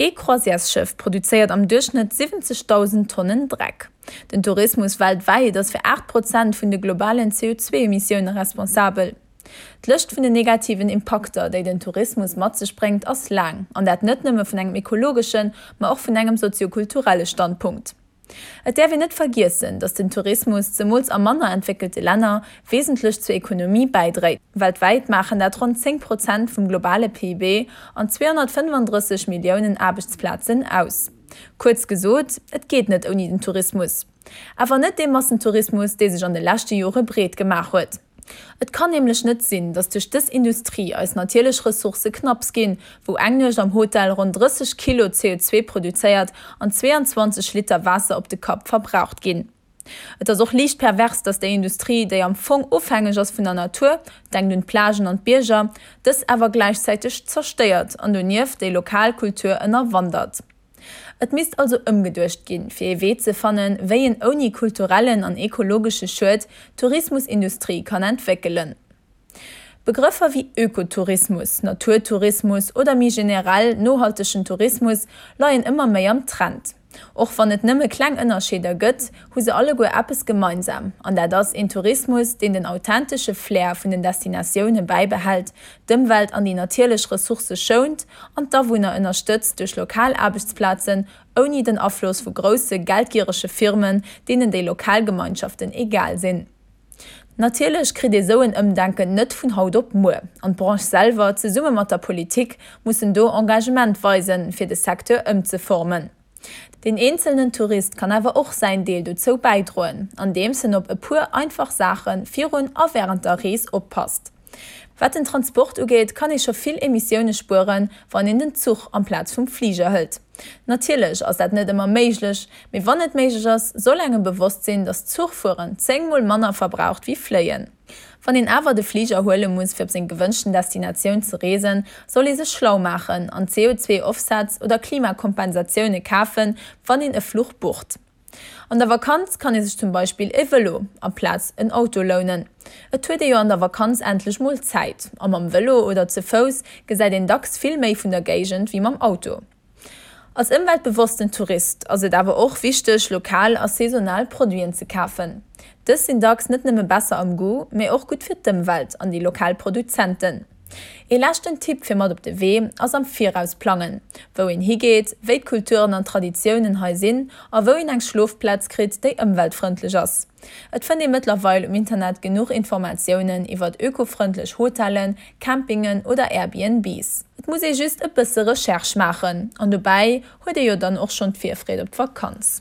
Ee Croisièresschëff produzéiert am Duerchschnëtt 70.000 Tonnen Dreck. Den Tourismus weltwäit ass fir 8 Prozent vun de globalen CO2-Emissioune responsabel. D'Lëscht vun den negativen Impakter, déi den Tourismus mat sech bréngt, ass laang, an dat net nëmme vun engem ekologeschen, ma och vun engem soziokulturelle Standpunkt. Et däerf een net vergiessen, datt den Tourismus, zemools a manner entwéckelte Länner, wesentlech zur Ekonomie bäidréit. Weltwäit maachen dat ronn 10 Prozent vum globale PIB an 235 Milliounen Aarbechtsplazen aus. Kuerz gesot, et geet net ouni den Tourismus. Awer net dee Massentourismus, dee sech an de leschte Jore breet gemaach huet. Et kann nämlech net sinn, datt duerch dës Industrie eis natierlech Ressourcë knapps ginn, wou eng Nuecht am Hotel ronn 30 Kilo CO2 produzéiert an 22 Liter Waasser op de Kapp verbraucht ginn. Et ass och liicht pervers, datt déi Industrie, déi am Fong ofhängeg ass vun der Natur, denkt un d'Plagen an d'Bierger, dës awer gläichzäiteg zerstéiert an donieft déi lokal Kultur ënnerwandert. Et misst also ëmgeduecht ginn, fir ee Wee ze fannen, wéi een ouni kulturellen an ekologesche Schued d'Tourismusindustrie kann entwéckelen. Begrëffer wéi Ökotourismus, Naturtourismus oder méi generell nohaltegen Tourismus leien ëmmer méi am Trend. Och wann et nëmme kleng Ënnerscheeder gëtt, hu se alleguer eppes gemeinsam, an dat ass een Tourismus, deen den authentesche Flair vun den Destinatioune bäibehält, d'Ëmwelt an déi natierlech Ressourcë schount an d'Awunner ënnerstëtzt duerch lokal Aarbechtsplazen, ouni den Afloss vu grousse geldgierege Firmen, deenen déi lokal Gemeinschaften egal sinn. Natierlech kritt ee sou en Ëmdenken net vun haut op muer, an d'Branche selwer, zesumme mat der Politik, mussen do Engagement weisen, fir de Secteur ëmzeformen. Deen eenzelnen Tourist kann awer och säin Deel dozou bäidroen, andeems en op e puer einfach Saache virun a wärend der Rees oppasst. Wat den Transport ugeet, kann ee scho vill Emissioune spueren, wann een den Zuch amplaz vum Fliger hëlt. Natierlech ass dat net ëmmer méiglech, mee wann et méiglech ass, soll engem bewosst sinn, dass Zuchfueren 10 mol manner verbraucht wéi Fléien. Wann een awer de Fliger huele muss fir op seng gewënschten Destinatioun ze reesen, soll ee sech schlau maachen an CO2-Offsets oder Klimakompensatioune kafen, wann een e Fluch bucht. An der Vakanz kann ee sech zum Beispill e Vëlo amplaz en Auto lounen. Et huet ee jo an der Vakanz endlech mol Zäit a mam Vëlo oder ze Fouss gesäit een dacks vill méi vun der Géigend wéi mam Auto. Als ëmweltbewossten Tourist ass et awer och wichteg, lokal a saisonal Produiten ze kafen. Dës sinn dacks net nëmme besser am Goût, mee och gutt fir d'Ëmwelt an déi lokal Produzenten. Ee leschten Tipp fir mat op de Wee ass am Viraus plangen, wou een higeet, wéi d'Kulturen an Traditiounen hei sinn a wou een eng Schlofplaz kritt, déi ëmweltfrëndlech ass. Et fënnt ee mëttlerweil um Internet genuch Informatiounen iwwert ökofrëndlech Hotellen, Campingen oder Airbnbs. Et muss ee just e bësse Recherche maachen an dobäi huet ee jo dann och schonn d'Virfreed op d'Vakanz.